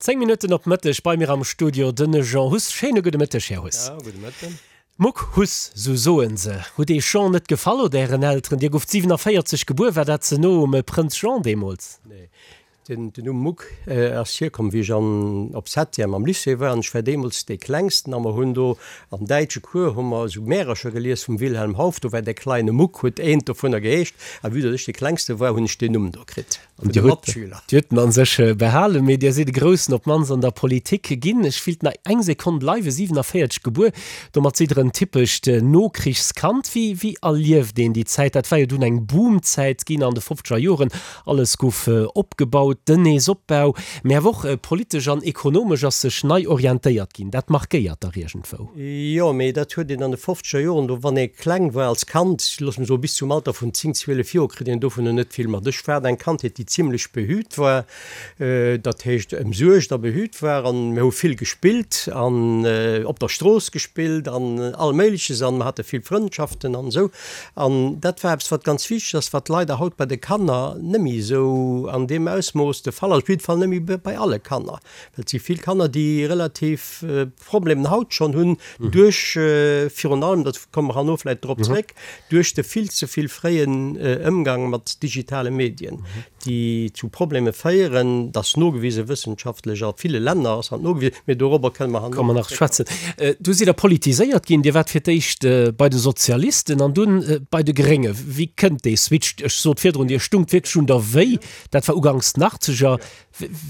10 Minutten op Mëtteg, bei mir am Studio den Jean Huss. Schéine gudde Mëtteg, Här Huss. Ja, gudde Mëtten. Muck Huss, sou soen se. Hutt Eech Jean net gefall oder Ären Elteren? Dir gouft 47 gebuer, war dat ze no um Prënz Jean deemools? Nee, den Numm Muck ass hierkomm, wéi ech an op Septième am Lycée war an ech war deemools dee Klengsten a mer hunn do am däitsche Cours hu mer esou Märercher gelies vum Wilhelm Hauff, do war der kleine Muck huet eent dovunner geheescht a vue datt ech dee Klengste war, hunn ech deen Numm do kritt. An Dir hutt Dir hutt en an sech behalen, mee Dir sidd e Groussen, op d'mannst an der Politik ginn. Ech willt nach eng Sekonn bleiwen, 47 gebuer, domat sidd Der en typescht Nokrichskand. Wéi wéi erlieft een déi Zäit? Dat war jo dunn eng Boomzäit ginn an de fofzeger Joren, alles gouf opgebaut, den Neesopbau, mee awer och politesch an ekonomesch ass sech nei orientéiert ginn. Dat markéiert dach iergendwou. Jo, mee dat huet een an de fofzeger Joren, do wann ee kleng war als Kand, looss mer soe bis zum Alter vun 10, 12 Joer, kritt een dovunner net vill mat. Ech hat eng Kandheet, déi zimlech behüt war, dat heescht ëmsuergt a behüt war an mir hu vill gespillt an op der Strooss gespillt an all Méigleches an mer hate vill Frëndschaften an esou. An dat war eppes, wat ganz wichteg ass, wat leider haut bei de Kanner net méi esou an deem Ausmooss de Fall ass, op jidde Fall net méi bei alle Kanner, well et si vill Kanner, déi relativ Problemen haut schonn hunn, duerch virun allem, dat komme mer herno vläicht drop zréck, duerch de vill ze vill fréien Ëmgang mat digitale Medien, déi zu Probleme féieren. Dat ass nogewise wëssenschaftlech, a ville Länner ass dat nogewisen, mee dorobber kënne mer herno nach zréckkommen. Du sidd Der politiséiert ginn. Dir waart fir d'éischt bei de Sozialisten an dunn bei de Grénge. Wéi kënnt dee Switch? Ech sot virdrun, Dir stungt wierklech un der Wéi. Dat war uganks den Achtzeger.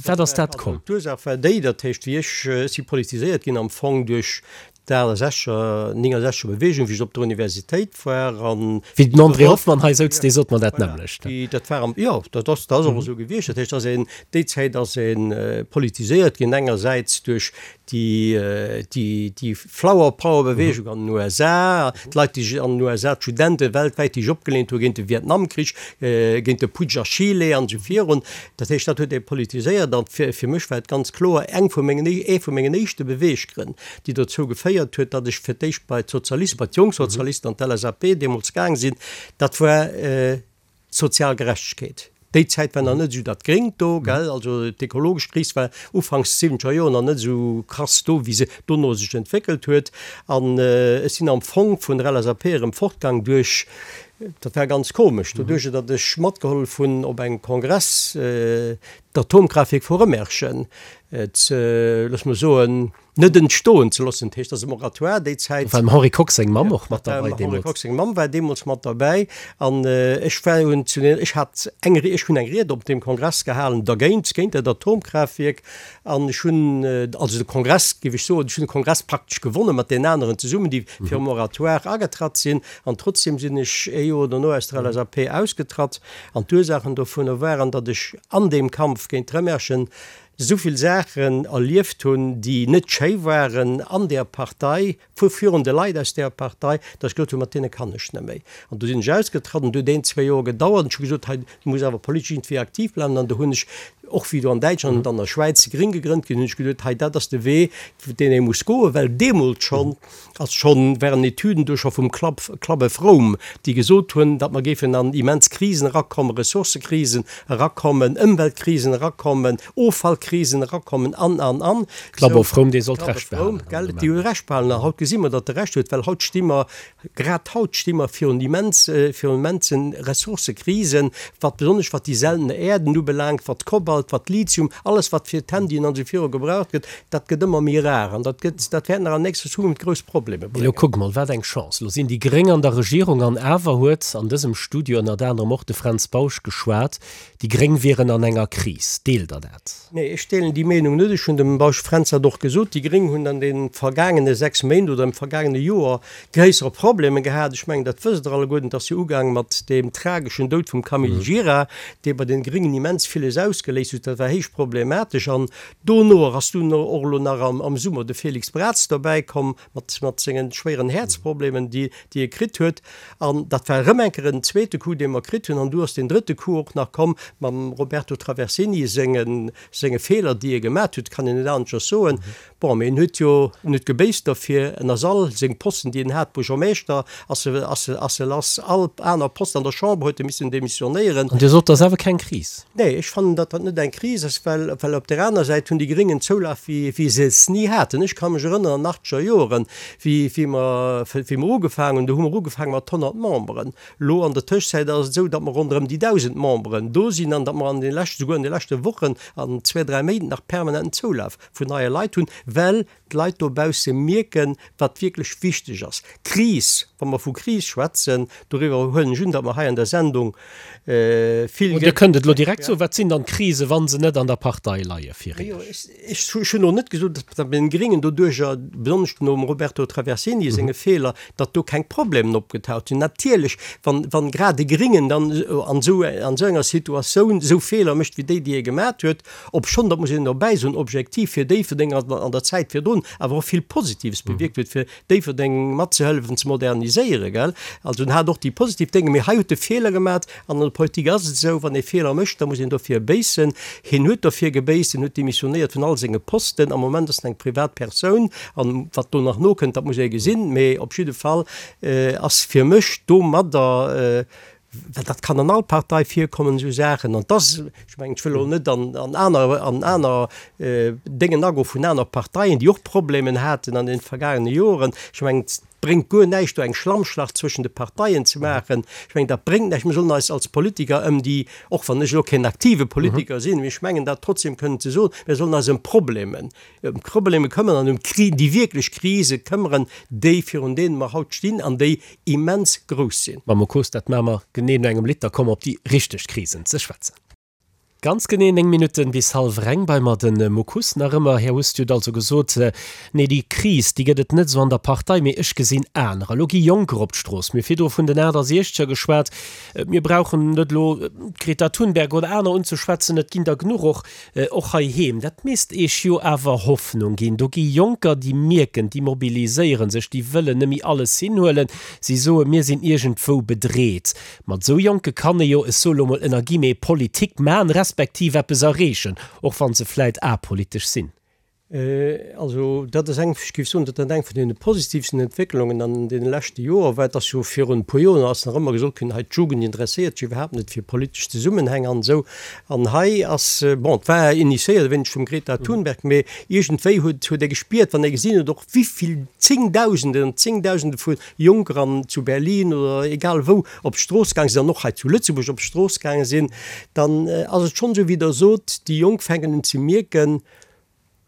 Wat ass dat komm? D'Ursaach war déi, dat heescht, wéi ech, ech si politiséiert ginn am Fong duerch d'Achtesechzeger, Néngesechzeger Beweegung, wéi ech op der Universitéit war an. Wéi den André Hoffmann hei souz, dee sot mer dat nämmlecht. Voilà, dat war am, jo, dat ass, dat ass och esou gewiescht. Dat heescht, dass een, déi Zäit ass ee politiséiert ginn, engersäits duerch déi, déi, déi Flower Power Beweegung an den USA, d'Leit, déi sech an den USA, d'Studente weltwäit, déi sech opgeleent hu géint de Vietnamkrich, géint de Putsch a Chile an esou virun. Dat heescht, dat huet ee politiséiert an fir, fir mech war et ganz kloer eng vu mengen, ee vu mengen éischte Beweeggrënn, déi dozou geféiert huet, datt ech fir d'éischt bei d'Sozialisten, bei d'Jongsozialisten an d'LSAP deemools gaang sinn, dat war d'sozial Gerechtegkeet. Déi Zäit war nach net esou dat Gréngt do, gell, also d'ekologesch Kris war ufanks siwwenzeger Joer nach net esou krass do, wéi se dono sech entwéckelt huet. An ech sinn am Fong vun der LSAP erëm fortgaang duerch, Dat war ganz komesch, doduerch datt ech matgehollef hunn op engem Kongress d'Atomkraaftwierk vu Rëmerschen ze, looss mer soen, net entstoen ze loossen. Dat heescht, datt e Moratoire déi Zäit. Do war dem Henri Kox seng Mamm och mat derbäi deemools. Dem Henri Kox seng Mamm war deemools mat derbäi. An ech war un zu den, ech hat eng, ech hunn eng Ried op deem Kongress gehalen dergéint, géint dat Atomkraaftwierk. An ech hunn also de Kongress, géif ech soen, ech hunn de Kongress praktesch gewonne mat deenen aneren zesummen, déi fir e Moratoire agetratt sinn. An trotzdem sinn ech ee Joer dono aus der LSAP ausgetratt. An d'Ursaachen dovunner waren, datt ech an deem Kampf géint d'Rëmerschen esou vill Saachen erlieft hunn, déi net schéi waren an där Partei, vu virun de Leit aus där Partei, datt ech gesot hunn, mat deene kann ech net méi. An du sinn ech ausgetratt an du huet een, zwéi Joer gedauert an ech hu gesot, hei, du muss awer politesch iergendwéi aktiv bleiwen. An du hunn ech, och wéi do an Däitschland an an der Schwäiz Gréng gegrënnt ginn, hunn ech gesot, hei, dat ass de Wee, deen ee muss goen, well deemools schonn, ass schonn, waren Etüden do scho vum Club, Club of Rome, déi gesot hunn, datt mer géifen an immens Krisen erakommen, Ressourcëkrisen erakommen, Ëmweltkrisen erakommen, Offallkrisen erakommen an, an, an. Club of Rome, dee sollt Recht behalen. Gell, déi hu Recht behalen. An haut gesi mer, datt e Recht huet, well haut sti mer, grad haut sti mer virun immens, virun immensen Ressourcëkrisen, wat besonnesch wat déi seltene Äerden ubelaangt, wat Kobalt, wat Lithium, alles wat fir d'Handyen an esou viru gebraucht gëtt. Dat gëtt ëmmer méi rar an dat gëtt, dat wäert nach an nächster Zukunft grouss Problemer Mee elo bréngen. kuck mol, wat eng Chance! Elo sinn déi Gréng an der Regierung an awer huet an dësem Studio ënnert anerem och de Fränz Bausch geschwat, déi Gréng wieren an enger Kris. Deelt Der dat? Nee, ech deelen déi Meenung net. Ech hunn dem Bausch Fränz dat och gesot. Déi Gréng hunn an de vergaangene 6 Méint oder am vergaangene Joer gréissere Problemer gehat. Ech mengen, dat wësst Der alleguerten. Et ass jo ugaang mat deem trageschen Doud vum Camille Gira, dee bei den Gréngen immens villes ausgeléist huet. Dat war héich problematesch an Dono ass dunn och elo nach am Summer de Félix Braz dobäi komm mat sengen schwéieren Häerzproblemen, déi e kritt huet. An dat war erëm eng Kéier en zweete Coup, dee mer kritt hunn. An du ass deen drëtte Coup och nach komm mam Roberto Traversini senge Feeler, déi e gemat huet, kann een net aneschters soen. Bon, mee en huet jo, en huet gebéisst derfir, en ass all seng Posten, déi en hat, Buergermeeschter ass e, ass e, ass e lass, all aner Posten an der Chamber huet e missen demissionéieren. An Dir sot, dat ass awer keng Kris? Nee, ech fannen, datt dat net eng Kris ass, well, well op där aner Säit hunn déi Gréng en Zoulaf wéi, wéi se es ni haten. Ech ka mech erënneren an achtzeger Joeren, wéi, wéi mer, wéi mer ugefaangen hunn, do hu mer ugefaange mat 100 Memberen. Elo an der Tëschzäit ass et esou, datt mer ronderëm déi 1.000 Memberen do sinn an datt mer an de leschten, souguer an de leschte Wochen an zwee, dräi Méint nach permanenten Zoulaf vun neie Leit hunn, well d'Leit dobausse mierken, wat wierklech wichteg ass. Kris, wa mer vu Kris schwätzen, doriwwer huelen ech un, datt mer hei an der Sendung vill. Dir kënnt et elo direkt soen, Wat sinn dann d'Krise, wa se net an der Partei leie fir Iech? Ech hunn elo net gesot, datt bei den Gréngen doduercher, besonnesch nom Roberto Traversini senge Feeler, datt do keng Problemen opgetaucht sinn. Natierlech, wann, wann grad e Gréngen dann an esou, an esou enger Situatioun esou Feeler mécht wéi déi, déi e gemat huet, obschonn, dat muss een dobäi soen, objektiv fir Déifferdeng an, an der Zäit virdrun awer och vill Positives bewierkt huet, fir Déifferdeng matzehëllefen ze moderniséieren, gell. Also en hat och déi positiv Dénge, mee hei huet e Feeler gemat. An an der Politik ass et esou, wann ee Feeler mécht, da muss een dofir béissen. Hien huet dofir gebéisst, hien huet demissionéiert vun all senge Posten. Am Moment ass en eng privat Persoun an wat do nach nokënnt, dat muss ee gesinn. Mee op jidde Fall ass fir mech domadder, well dat kann an all Partei virkommen, esou Saachen, an dass, ech mengen, ech wëll elo net an aner, an aner Déngen agoen vun aner Parteien, déi och Problemen haten an den vergaangene Joren, ech mengen, Et bréngt guer näischt, do eng Schlammschlacht zwëschen de Parteien ze maachen. Ech mengen, dat bréngt näischt. Mir sollen eis als Politiker ëm déi, och wann ech elo keen aktive Politiker sinn, mee ech mengen dat trotzdem kënnen ze soen, mir sollen eis ëm d'Problemen, ëm d'Probleme këmmern an ëm d'Kri, déi wierklech Krise këmmern, déi, virun deene mer haut stinn an déi immens grouss sinn. Mme Mocos, dat maache mer genee no engem Lidd. Da komme mer op déi richteg Krisen ze schwätzen. Ganz genee 9 Minutten bis hallwer eng bei mer den Muck Huss nach ëmmer. Här Huss, Dir hutt also gesot, nee déi Kris, déi gëtt et net esou an der Partei, mee ech gesinn anerer. Elo gi Jonker op d'Strooss. Mir hu virdru vun den 68er geschwat. Mir brauchen net elo d'Greta Thunberg oder aner unzeschwätzen, et ginn der genuch och, och heiheem. Dat misst Iech jo awer Hoffnung ginn. Do gi Jonker, déi mierken, déi mobiliséiere sech, déi wëllen net méi alles hinhuelen. Si soen, mir sinn iergendwou bedreet. Mat esou Jonke kann ee jo, ech soe lo mol ënner Guillemets, Politik man, respektiv eppes erreechen, och wa se vläit apolitesch sinn. Also dat ass eng, ech géif soen, dat ass eng vun deene positivsten Entwécklungen an deene leschte Joer, well et ass jo virun e puer Joer ass nach ëmmer gesot ginn, hei d'Jugend interesséiert sech iwwerhaapt net fir politesch Zesummenhäng an esou. An hei ass, bon, et war initiéiert e wéineg vum Greta Thunberg, mee iergendwéi huet huet ee gespiert, wann ee gesinn huet och wéivill Zéngdausenden an Zéngdausende vu Jonker an zu Berlin oder egal wou op d'Strooss gaang sinn an och hei zu Lëtzebuerg op d'Strooss gaange sinn, dann ass et schonn esou wéi Der sot, déi Jonk fänken un ze mierken,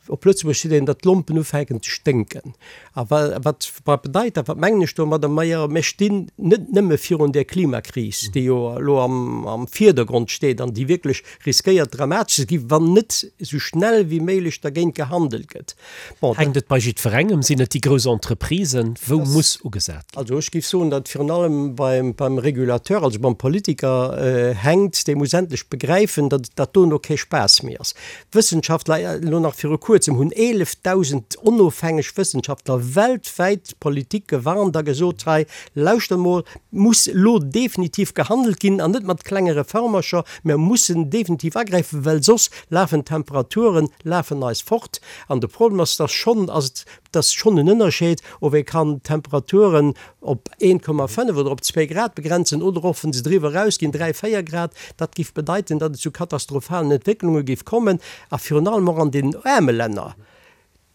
op Lëtzebuerg seet een, datt d'Lompen ufänken ze sténken. A wat wat bedeit dat, wat mengen ech domadder? Majo, mir stinn net nëmme virun där Klimakris, déi jo elo am am Virdergrond steet an déi wierklech riskéiert dramatesch ze ginn, wann net esou schnell wéi méiglech dergéint gehandelt gëtt. Bon, Hänkt et bei jiddwerengem? Sinn et déi grouss Entreprisen? Wou muss ugesat ginn? Also ech géif soen, datt virun allem beim, beim Régulateur, also beim Politiker hänkt. Dee muss endlech begräifen, datt dat dono kee Spaass méi ass. Wëssenschaftler, elo nach viru kuerzem hunn 11.000 onofhängeg Wëssenschaftler weltwäit d'Politik gewarnt a gesot, hei lauschtert mol, muss elo definitiv gehandelt ginn an net mat klenge Reformercher, mer mussen definitiv agräifen, well soss lafen d'Temperaturen lafen eis fort. An de Problem ass, dass schonn ass et dass schonn en Ënnerscheed, ob ee kann d'Temperaturen op 1,5 oder op zwéi Grad begrenzen oder och, wa se driwwer erausginn, 3, 4 Grad. Dat géif bedeiten, datt et zu katastrophalen Entwécklunge géif kommen a virun allem och an den aarme Länner.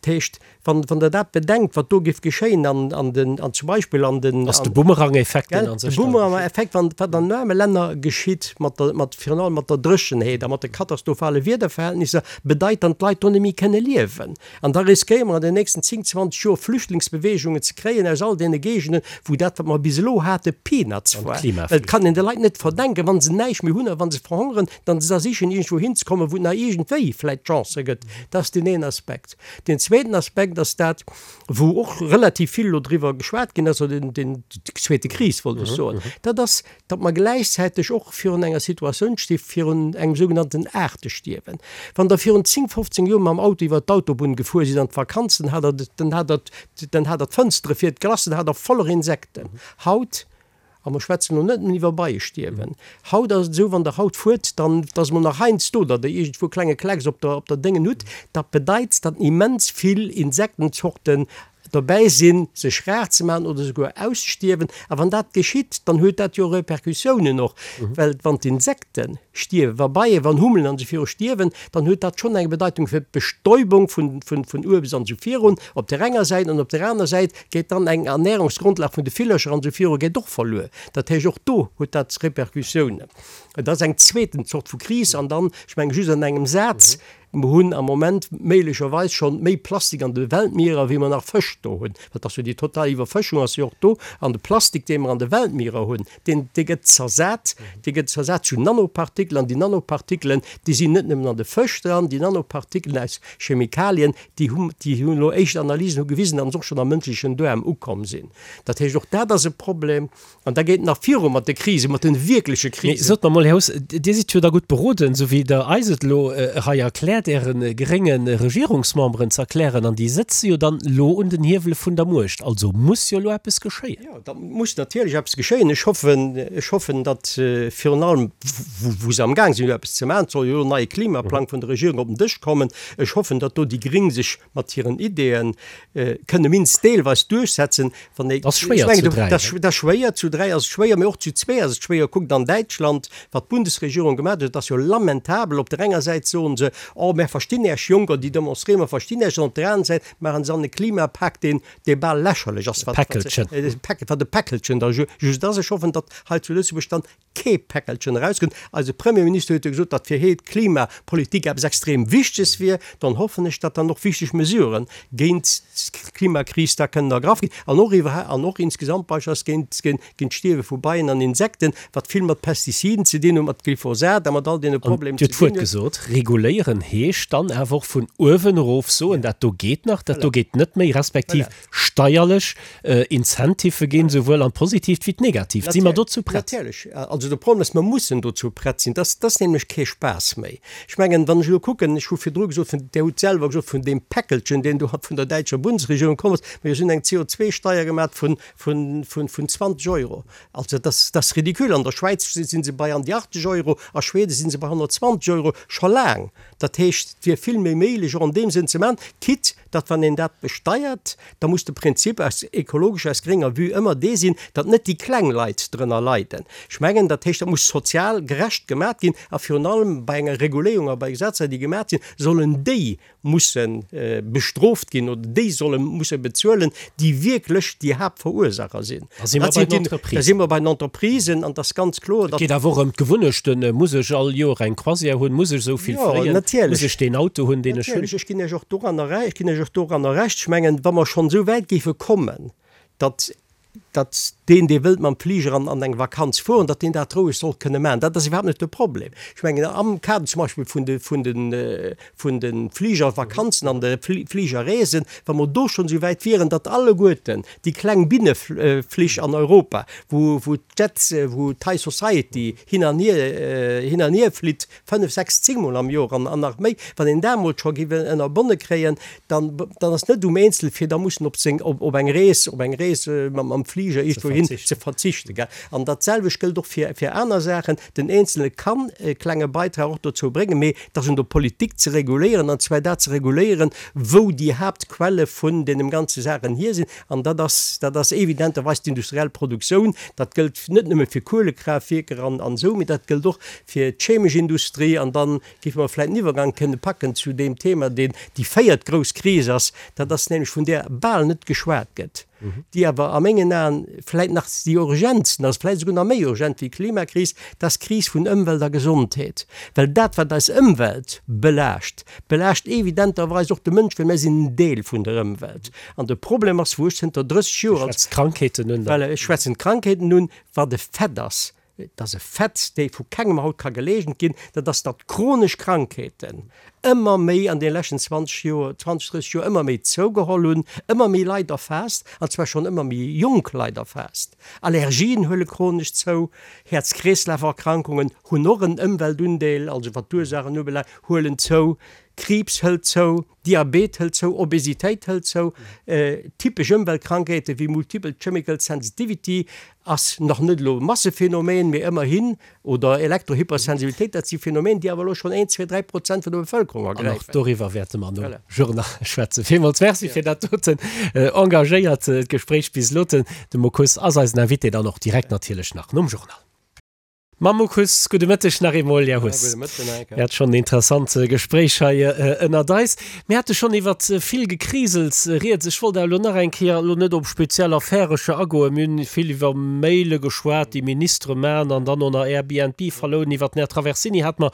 Dat heescht, wann, wann Der dat bedenkt, wat do géif geschéien an, an den, an zum Beispill an den. Ass de Bumerang-Effekt, deen a sech da. De Bumerang-Effekt, wann, wat an aarme Länner geschitt mat der, mat, virun allem mat der Dréchenheet a mat de katastrophale Wiederverhältnisser, bedeit dann, d'Leit do net méi kënne liewen. An da riskéiere mer an den nächsten 10, 20 Joer Flüchtlingsbewegungen ze kréien aus all deene Géigenden, wou dat, wat mer bis elo hate, Peanuts war. Well et kann een de Leit net verdenken, wa se näischt méi hunn a wa se verhongeren, dann se da sichen, iergendwou hinzekommen, wou et nach iergendwéi vläicht Chancë gëtt. Dat ass deen een Aspekt. Deen zweeten Aspekt ass dat, wou och relativ vill elo driwwer geschwat ginn ass, oder deen, déi zweete Kris, wollt ech soen, dat ass, datt mer gläichzäiteg och virun enger Situatioun sti virun engem sougenannten Aartestierwen. Wann Der virun 10, 15 Joer mam Auto iwwert d'Autobunn gefuer sidd an d'Vakanz, dann hat Der, dann hat Der, dann hat Der d'Fënstere fir d'Glace, dann hat Der voller Insekten. Haut. A mer schwätzen elo net nëmmen iwwer Beiestierwen. Haut ass et esou, wann Der haut fuert, dann ass emol nach heiansdo, datt Der iergendwou e klenge Klecks op der, op der Déngen hutt. Dat bedeit, datt immens vill Insektenzorten dobäi sinn, sech rar ze maachen oder souguer ausstierwen. A wann dat geschitt, dann huet dat jo Repercussiounen och, well wann d'Insekte stierwen, wa Beien, wann Hummelen an esou viru stierwen, dann huet dat schonn eng Bedeitung fir d'Bestäubung vun, vun, vun Uebst an esou virun op där enger Säit an op där aner Säit geet dann eng Ernährungsgrondlag vun de Villercher an esou viru geet och verluer. Dat heescht, och do huet dat Repercussiounen. Et ass eng zweeten Zort vu Kris. An dann, ech menge just an engem Saz, Mer hunn am Moment méiglecherweis schonn méi Plastik an de Weltmierer, wéi mer nach Fësch do hunn. Dat ass jo déi total Iwwerfëschung ass jo och do. An de Plastik, dee mer an de Weltmierer hunn, deen, dee gëtt zersat, dee gëtt zersat zu Nanopartikelen. An déi Nanopartikelen, déi sinn net nëmmen an de Fësch dran, déi Nanopartikelen aus Chemikalien, déi hu, déi hunn elo éischt Analysen hu gewisen, datt se och schonn am mënschlechen Duerm ukomm sinn. Dat heescht, och dat ass e Problem. An da geet nach viru mat de Krisen, mat de wierkleche Krisen. Mee sot mer mol, Här Huss, Dir sidd jo da gutt beroden, esou wéi Der eis et elo hei erkläert, Äre grénge Regierungsmemberen ze erklären, an déi sëtze jo dann elo un den Hiewele vun der Muecht. Also muss jo elo eppes geschéien. Jo, da muss natierlech eppes geschéien. Ech hoffen, ech hoffen, datt virun allem, wou se amgaang sinn elo eppes ze maachen, et soll jo elo en neie Klimaplang vun der Regierung op den Dësch kommen, ech hoffen, datt do déi Gréng sech mat hiren Ideeën kënne minst deelweis duerchsetzen. Wann ee, Ass schwéier zu dräi, ne? Dat ass schwéier, zu dräi ass et schwéier, mee och zu zwee ass et schwéier. Kuckt an Däitschland, wat d'Bundesregierung gemaach huet, dat ass jo lamentabel. Op der enger Säit soen se, oh mär verstinn Äech Jonker, déi demonstréieren, mer verstinn Äech, an op der aner Säit maachen se an e Klimapak, deen, dee bal lächerlech ass, wat, Päckelchen. wat e Päckelchen da just ass. Ech hoffen, datt hei zu Lëtzebuerg dann kee Päckelchen erauskënnt. Eise Premierminister huet jo gesot, datt fir hee d'Klimapolitik eppes extrem Wichteges wier. Dann hoffen ech, datt dann och wichteg Mesurë géint d'Klimakris da kënnen ergraff ginn an och iwwer an och insgesamt beispillsweis géint géint d'Stierwe vu Beien an Insekten, wat vill mat Pestiziden ze dinn huet, mat Glyphosat a mat all deene Problemen ze dinn huet. Dir hutt d'Wuert gesot, reguléieren heescht dann awer och vun uewen erof soen, dat do geet nach, dat do geet net méi, respektiv steierlech Incentivë ginn, souwuel an d'Positiivt wéi d'Negatiivt. Si mer dozou prett? Natierlech. Also de Problem ass, mer mussen dozou prett sinn. Dat ass nämlech kee Spaass méi. Ech mengen, wann ech elo kucken, ech hu virdru gesot, vun, Dir hutt selwer gesot, vun deem Päckelchen, deen do vun der däitscher Bundesregierung komm ass, mir hunn eng CO2-Steier gemaach vun, vun, vun, vun 20 Euro. Also dat ass, dat ass ridicule. An der Schwäiz si se bei an déi 80 Euro, a Schweden si se bei 120 Euro scho laang. Dat heescht, et wier vill méi méiglech och an deem Sënn ze maachen, quitte datt wann een dat besteiert, da muss de Prinzip aus ekologescher, aus grénger Vue ëmmer dee sinn, datt net déi kleng Leit drënner leiden. Ech mengen, dat heescht, dat muss sozial gerecht gemat ginn a virun allem bei enger Reguléierung a bei Gesetzer, déi gemat sinn, sollen déi musse bestrooft ginn oder déi solle musse bezuelen, déi wierklech déi Haaptverursacher sinn. Da si mer bei den Entreprisen. Da si mer bei den Entreprisen an et ass ganz kloer, datt. Et geet awer och ëm d'Gewunnechten. Muss ech all Joer eng Croisière hunn? Muss ech esou vill fléien? Muss ech deen Auto hunn, deen ech hunn? Natierlech, ech ginn Iech och doranner Recht, ech ginn Iech och doranner Recht. Ech mengen, wa mer schonn esou wäit géife kommen, datt datt deen, dee wëllt mam Fliger an an eng Vakanz fueren, datt deen dat roueg soll kënne maachen. Dat ass iwwerhaapt net de Problem. Ech mengen, am Kader zum Beispill vun de vun de vun de Fligervakanzen an de Fligerreesen, wa mer do schonn esou wäit wieren, datt alleguerten déi kleng Binneflich an Europa, wou wou d'Jets, wou d'High Society hin an hier hin an hier flitt, fënnef, sechs, zéngmol am Joer an an nach méi, wann een dat emol scho géif ënnerbonne kréien, dann dann ass net um Eenzel fir da mussen op seng op op eng Rees op eng Rees mam mam Fliger iergendwou hin ze verzichten, gell. An dat selwecht gëllt och fir fir aner Saachen. Den Eenzelne kann e klenge Beitrag och dozou bréngen, mee et ass un der Politik ze reguléieren, an zwar dat ze reguléieren, wou déi Haaptquelle vun deenen ganze Saachen hier sinn. An dat ass dat ass evidenterweis d'industriell Produktioun. Dat gëllt net nëmme fir Kuelekraaftwierker an an esou, mee dat gëllt och fir d'chemesch Industrie. An dann géife mer vläicht den Iwwergang kënne packen zu deem Thema, deen déi véiert grouss Kris ass, dat ass nämlech, vun där bal net geschwat gëtt, déi awer a mengen Aen vläicht nach déi urgentsten ass, vläicht esouguer nach méi urgent wéi d'Klimakris, dat ass d'Kris vun Ëmwelt a Gesondheet. Well dat, wat eis Ëmwelt belaascht, belaascht evidenterweis och de Mënsch, well mir sinn en Deel vun der Ëmwelt. An de Problem ass, wou ech zënter 30 Joer als. Ech schwätzen d'Krankheeten un. Voilà, ech schwätzen d'Krankheeten un, wat e Fait ass, Et ass e Fait, dee vu kengem haut ka geleegent ginn, dat ass, datt chronesch Krankheeten ëmmer méi an deene leschten 20 Joer, 20, 30 Joer ëmmer méi zougeholl hunn, ëmmer méi Leit erfaasst, an zwar schonn ëmmer méi jonk Leit erfaasst. Allergien huele chronesch zou, Häerz-Kreeslaf-Erkrankungen hunn och en Ëmweltundeel, also wat d'Ursaachen ubelaangt, huelen zou. Kriibs hëlt zou, Diabet hëlt zou, Obesitéit hëlt zou, typesch Ëmweltkrankheete wéi Multiple Chemical Sensitivity ass nach net elo e Massephänomen, mee ëmmerhin, oder Elektrohypersensibilitéit, dat si Phänomen, déi awer elo schonn een, zwee, 3% vun der Bevëlkerung An och ergräifen. doriwwer wäerte mer nom Journal schwätzen. Villmools Merci fir dat doten engagéiert Gespréich bis elo. De Muck Huss ass eisen Invité dann och direkt natierlech nach nom Journal. Mam Muck Huss, gudde Mëtteg nach eemol, Här Huss. Gudde Mëtten, Här Ecker. Mir hate schonn en interessant Gespréich hei ënnert eis. Mir hate schonn iwwert vill Gekrisels rieds. Ech wollt awer elo nach eng Kéier, elo net op speziell Affärecher agoen, mir hunn vill iwwer Maile geschwat, déi Ministere maachen an dann och nach Airbnb verlounen. Iwwert den Här Traversini hate mer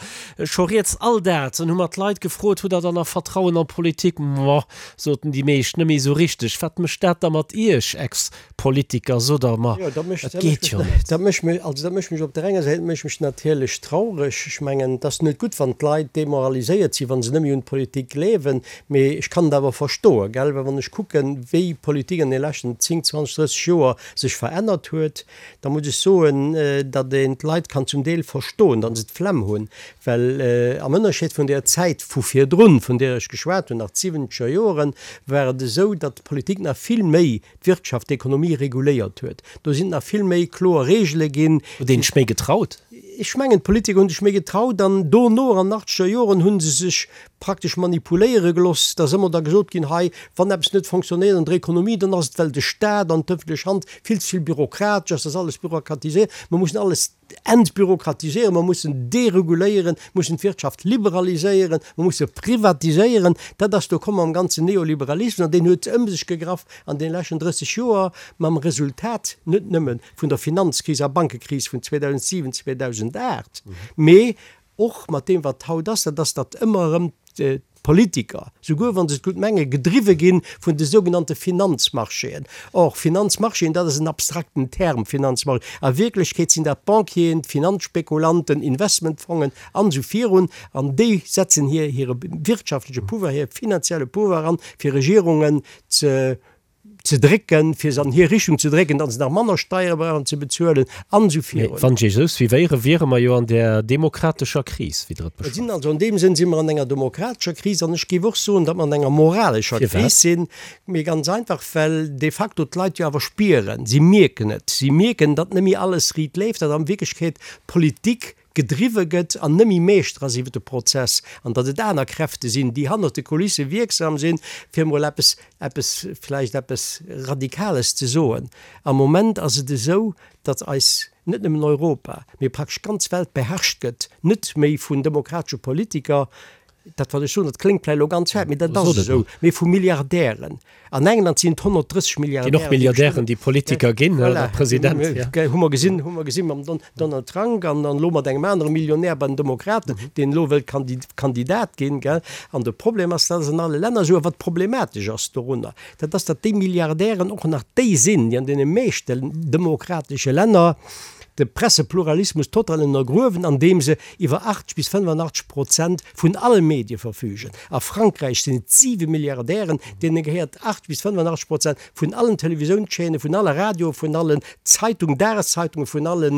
scho rieds. All dat, dann hu mer d'Leit gefrot, Hutt Der dann nach Vertrauen an d'Politik? Moah, soten déi meescht, net méi esou richteg. Wat mécht dat da mat Iech, Ex. Politiker, sot der, ma et geet jo net. Dat mécht mech, also dat mécht mech op der enger Säit mécht mech natierlech traureg. Ech mengen, et ass net gutt, wann d'Leit demoraliséiert sinn, wa se net méi un d'Politik gleewen. Mee ech kann et awer verstoen, gell, well wann ech kucken, wéi d'Politik an de leschten 10, 20, 30 Joer sech verännert huet, da muss ech soen, datt een d'Leit kann zum Deel verstoen, datt se d'Flemm hunn. Well am Ënnerscheed vun där Zäit vu virdrun, vun där ech geschwat hunn, nach d'siwwenzeger Joren, war et esou, datt d'Politik nach vill méi d'Wirtschaft, d'Ekonomie reguléiert huet. Do sinn nach vill méi kloer Regele ginn. Huet een sech méi getraut? Ech mengen, d'Politiker hu sech méi getraut an dono, an den achtzeger Joren, hu se sech praktesch manipuléiere geloss. Da ass ëmmer da gesot ginn, hei, wann eppes net fonctionnéiert an der Ekonomie, dann ass et, well de Staat an d'ëffentlech Hand vill ze vill bürokratesch ass, da ass alles bürokratiséiert, mer mussen alles entbürokratiséieren, mer mussen dereguléieren, mussen d'Wirtschaft liberaliséieren, mer musse privatiséieren. Dat ass do komm mam ganzen Neoliberalismus an deen huet ëm sech gegraff an deene leschten 30 Joer, mam Resultat net nëmme vun der Finanzkris a Bankekris vun 2007, 2008, mee och mat deem wat haut ass, dat ass, datt ëmmer erëm d'Politiker, souguer wa se et gutt mengen, gedriwwe gi vun de sougenannte Finanzmarchéen. Or, Finanzmarchéen, dat ass en abstrakten Term, Finanzmarché. A Wierklechkeet sinn dat d'Banquieren, d'Finanzspekulanten, Investmentfongen an esou virun. An déi setzen hir hire wirtschaftleche Pouvoir, hire finanzielle Pouvoir an, fir Regierungen ze ze drécken, fir se an hir Richtung ze drécken, datt se nach manner Steiere brauchen ze bezuelen an esou Mee virun. wann ech Iech esou suivéieren, wiere mer jo an där demokratescher Kris, wéi Der et Et sinn beschreift. also an deem Sënn si mer an enger demokratescher Kris an ech géif och soen, datt mer an enger moralescher Firwat? Kris sinn. Mee ganz einfach, well de facto d'Leit jo awer spieren, si mierken et, si mierken, datt net méi alles riit leeft, datt an Wierklechkeet d'Politik gedriwwe gëtt an net méi Meeschter ass iwwer de Prozess an datt et aner Kräfte sinn, déi hannert de Kulisse wierksam sinn, fir emol eppes, eppes, vläicht eppes Radikales ze soen. Am Moment ass et esou, datt eis, net nëmmen Europa, mee praktesch d'ganz Welt beherrscht gëtt, net méi vun demokratesche Politiker, Dat wat ech soen, dat kléngt vläicht elo ganz haart, mee dat ass esou, mee vu Milliardären. An England sinn et 130 Milliardären. Ginn och Milliardären, déi Politiker ginn, oder President, ja. Hu mer gesinn, hu mer gesinn mam Donald Trump an dann elo mat engem anere Millionär bei den Demokraten, deen elo wëllt Kandidat ginn, gell. An de Problem ass, dat ass an alle Länner esou. A wat problematesch ass dorunner, dat ass, datt déi Milliardären och nach déi sinn, déi an deene meeschten demokratesche Länner de Pressepluralismus total ënnergruewen, andeem se iwwer 80 bis 85 Prozent vun alle Medie verfügen. A Frankräich sinn et siwe Milliardären, deene gehéiert 80 bis 85 Prozent vun allen Televisiounschaînen, vun alle Radioen, vun allen Zeitung, Dageszeitungen, vun alle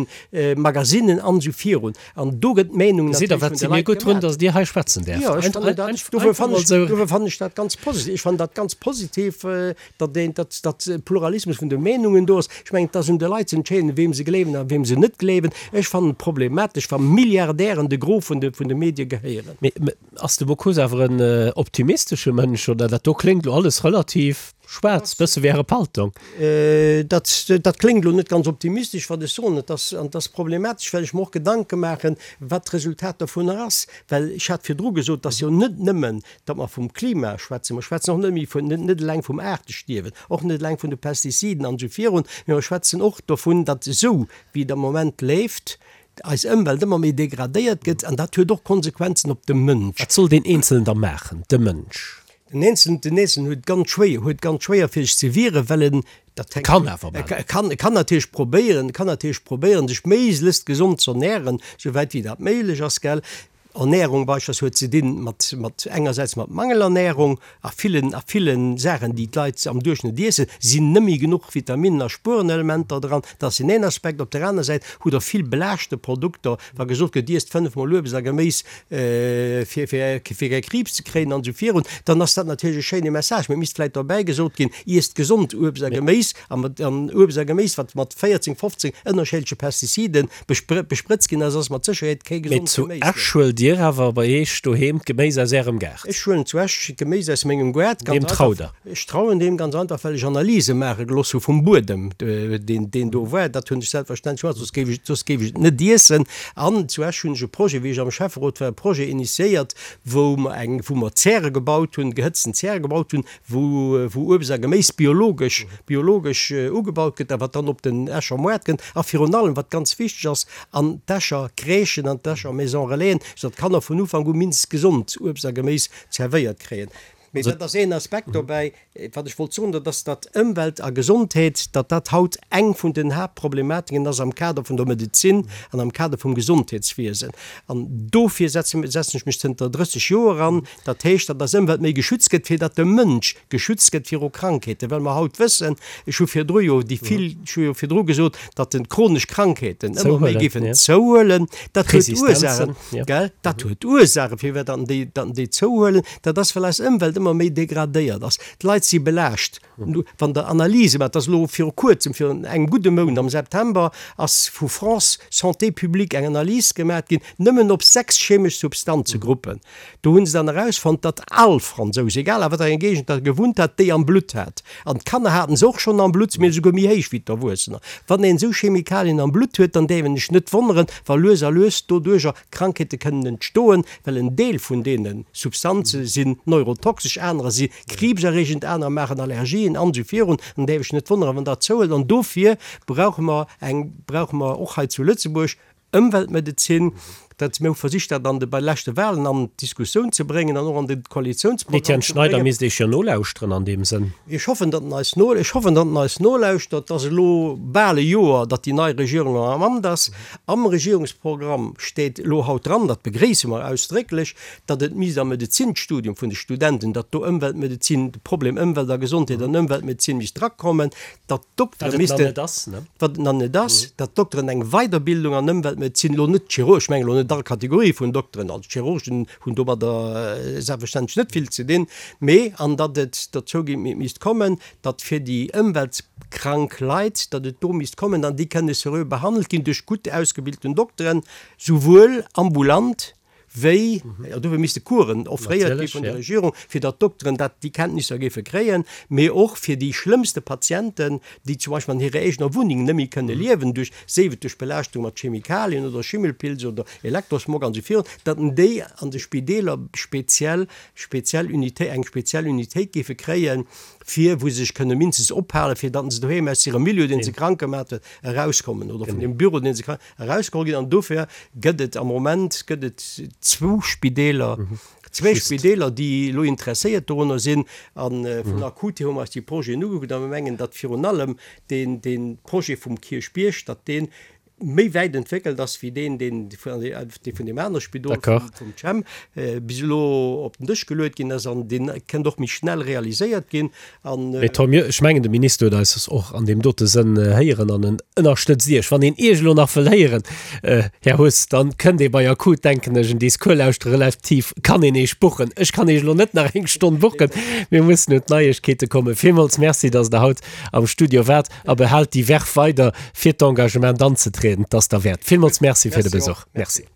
Magazinen an esou virun. An do gëtt d'Meenung Gesitt Der, natierlech wat vun si de mir Leit gutt drun, gemaach. datt Dir hei schwätzen däerft. Jo, ech fannen dat, dofir fannen ech, dofir fannen ech dat ganz positiv. Ech fannen dat ganz positiv, datt een, datt, datt e Pluralismus vun de Meenungen do ass. Ech mengen, et ass un de Leit ze entscheeden, weem se gleewen a weem se net gleewen. Ech fannen et problematesch, wa Milliardären de Gros vun de, vun de Medie gehéieren. Mee ass de Bocuse awer en optimistesche Mënsch, oder? Dat do kléngt elo alles relativ schwaarz, bësse wéi Äre Paltong. Dat, dat kléngt elo net ganz optimistesch, wat ech soen. Et ass, an et ass problematesch, well ech mer och Gedanke maachen, wat d'Resultat dovunner ass. Well ech hat virdru gesot, et ass jo net nëmmen Datt mer vum Klima schwätzen, mer schwätzen och net méi vun, net eleng vum Aartestierwen, och net eleng vun de Pestiziden an esou virun, mee mer schwätzen och dovun, datt esou wéi et am Moment leeft, eis Ëmwelt ëmmer méi degradéiert gëtt an dat huet och Konsequenzen op de Mënsch. Wat soll deen Eenzelen da maachen, de Mënsch? Den Eenzelen, den Eenzelen huet ganz schwéier, huet ganz schwéier fir sech ze wieren, well en, dat hänkt, Kann awer maachen. E kann, e kann natierlech probéieren, e kann natierlech probéieren, sech méiglechst gesond z'ernären, souwäit wéi dat méiglech ass, gell. Ernährung beispillsweis huet ze dinn mat, mat engersäits mat Mangelernährung a villen, a villen Saachen, déi d'Leit am Duerchschnëtt iessen, sinn nëmme genuch Vitaminnen a Spuerenelementer dran. Dat ass deen een Aspekt. Op der aner Säit hutt Der vill belaaschte Produkter, wa gesot gëtt, iesst fënnefmol Uebst a Geméis, fir, fir, fir kee Kriibs ze kréien an esou virun, dann ass dat natierlech e schéine Message. Mee et misst vläicht derbäi gesot ginn, iesst gesond Uebst a Geméis a mat, an Uebst a Geméis, wat mat 14, 15 ënnerscheedleche Pestiziden besprëtzt ginn ass, ass mat Sécherheet kee Mee gesond zu Geméis. Esch huelt Dir awer bei Iech doheem d'Geméis aus Ärem Gaart? Ech huelen zu Esch d'Geméis aus mengem Gaart, ganz Deem einfach. traut Der? Ech trauen deem ganz einfach, well ech Analyse maache gelooss hu vum Buedem, deen, deen do war. Dat hunn ech selbstverständlech gemaach, soss géif ech, soss géif ech et net iessen. An zu Esch hunn ech e Projet, wéi ech am Schäfferot war, e Projet initiéiert, wou mer eng, wou mer Zäre gebaut hunn, gehëtzten Zäre gebaut hunn, wou wou Uebst a Geméis biologesch biologesch ugebaut gëtt a wat dann op den Escher Moart kënnt a virun allem, wat ganz wichteg ass, an d'Escher Crèchen, an d'Escher Maison Relaisen, soudatt d'Kanner vun Ufank u mindestens gesond Uebst a Geméis zerwéiert kréien. Mee dat ass een Aspekt dobäi. Wat ech wollt soen, dat ass, datt Ëmwelt a Gesondheet, datt dat haut eng vun den Haaptproblematiken ass am Kader vun der Medezin an am Kader vum Gesondheetswiesen. An dofir setzen ech mech zënter 30 Joer an, Dat heescht, datt eis Ëmwelt méi geschützt gëtt, fir datt de Mënsch geschützt gëtt viru Krankheeten, well mer haut wëssen, ech hu virdru jo déi vill, ech hu jo virdru gesot, datt de chronesch Krankheeten ëmmer méi géifen zouhuelen. Dat huet Ursachen, gell? Dat huet Ursachen, firwat datt déi, datt déi zouhuelen. Dat ass, well eis Ëmwelt ëmmer méi degradéiert ass. D'Leit si belaascht. Wann Der Analyse maacht, dat ass elo viru Kuerzem, virun engem gudde Mount, am September, ass vu France Santé Publique eng Analys gemaat ginn, nëmmen op 6 chemesch Substanzegruppen. Do hu se dann erausfonnt, datt all Fransous, egal a wat enger Géigend der gewunnt hat, déi am Blutt hat. An d'Kanner haten se och schonn am Blutt, mee esouguer méi héich wéi d'Erwuessener. Wann een esou Chemikalien am Blutt huet, dann däerf een sech net wonneren, wa lues a lues doduercher Krankheete kënnen entstoen, well en Deel vun deene Substanze sinn neurotoxesch, anerer si kriibserreegend, anerer maachen Allergien an esou virun. An däerf ech net wonneren, wann dat zouhëlt. An dofir brauche mer eng, brauche mer och hei zu Lëtzebuerg Ëmweltmedezin. Dat, mir hu versicht, dat an de, bei de leschte Wahlen an d'Diskussioun ze bréngen an och an de Koalitiounsprogramm ze bréngen. Etienne Schneider misst Iech jo nolauschteren an deem Sënn. Ech hoffen, datt en eis no, ech hoffen, datt en eis nolauschtert. Et ass elo bal e Joer, datt déi nei Regierung am Amt ass. Am Regierungsprogramm steet elo haut dran, dat begréisse mer ausdrécklech, datt et misst am Medezinstudium vun de Studenten, datt do Ëmweltmedezin, de Problem Ëmwelt a Gesondheet an Ëmweltmedezin misst drakommen, datt d'Doktere missten, wat et nach net ass, datt d'Dokteren eng Weiderbildung an Ëmweltmedezin, elo net d'Chirurgen, ech mengen elo net all Kategorie vun Dokteren, also d'Chirurgen hunn domadder selbstverständlech net vill ze dinn, mee an datt et dozou misst kommen, datt fir déi ëmweltkrank Leit, datt et do misst kommen an déi kënne seriö behandelt ginn duerch gutt ausgebilten Dokteren, souwuel ambulant wéi, jo dofir misste Coursen offréiert gi vun der Regierung, fir datt d'Dokteren dat, déi Kenntnisser géife kréien, mee och fir déi schlëmmste Patienten, déi zum Beispill an hirer eegener Wunneng net méi kënne liewen duerch, séif et duerch Belaaschtung mat Chemikalien oder Schimmelpilz oder Elektrosmog an esou virun, datt déi an de Spideeler speziell, speziell Unité, eng speziell Unitéit géife kréien, fir wou se sech kënne mindestens ophalen, fir datt se doheem aus hirem Milieu, dee se krank gemaat huet, erauskommen oder vun deem Büro, dee se krank. Erausgeholl ginn. An dofir gëtt et am Moment gëtt et zwou Spideeler, zwee Spideeler, déi elo interesséiert dorunner sinn. A vun Akut hier hu mer eis déi Projeten ugekuckt a mir mengen, datt virun allem deen, dee Projet vum Kierchbierg, datt dee méi wäit entwéckelt ass wéi deen, deen vun deem anere Spidol, vum CHEM, bis elo op den Dësch geluet ginn ass. An dee kënnt och méi schnell realiséiert ginn. An. Mee tant mieux, ech mengen de Minister huet eis och an deem dote Sënn héieren an en ënnerstëtzt Iech. Wann een Iech elo nach wëll héieren, Här Huss, dann kënnt ee bei Akut, denken ech, en Discours lauschtere, relativ kann een Iech buchen. Ech kann Iech elo net nach eng Stonn buchen, mir mussen un d'Neiegkeete kommen. Villmools Merci, dass Der haut am Studio waart a behaalt déi Verve weider, fir d'Engagement anzetrieden. 't ass derwäert. Villmools Merci fir de Besuch. Merci.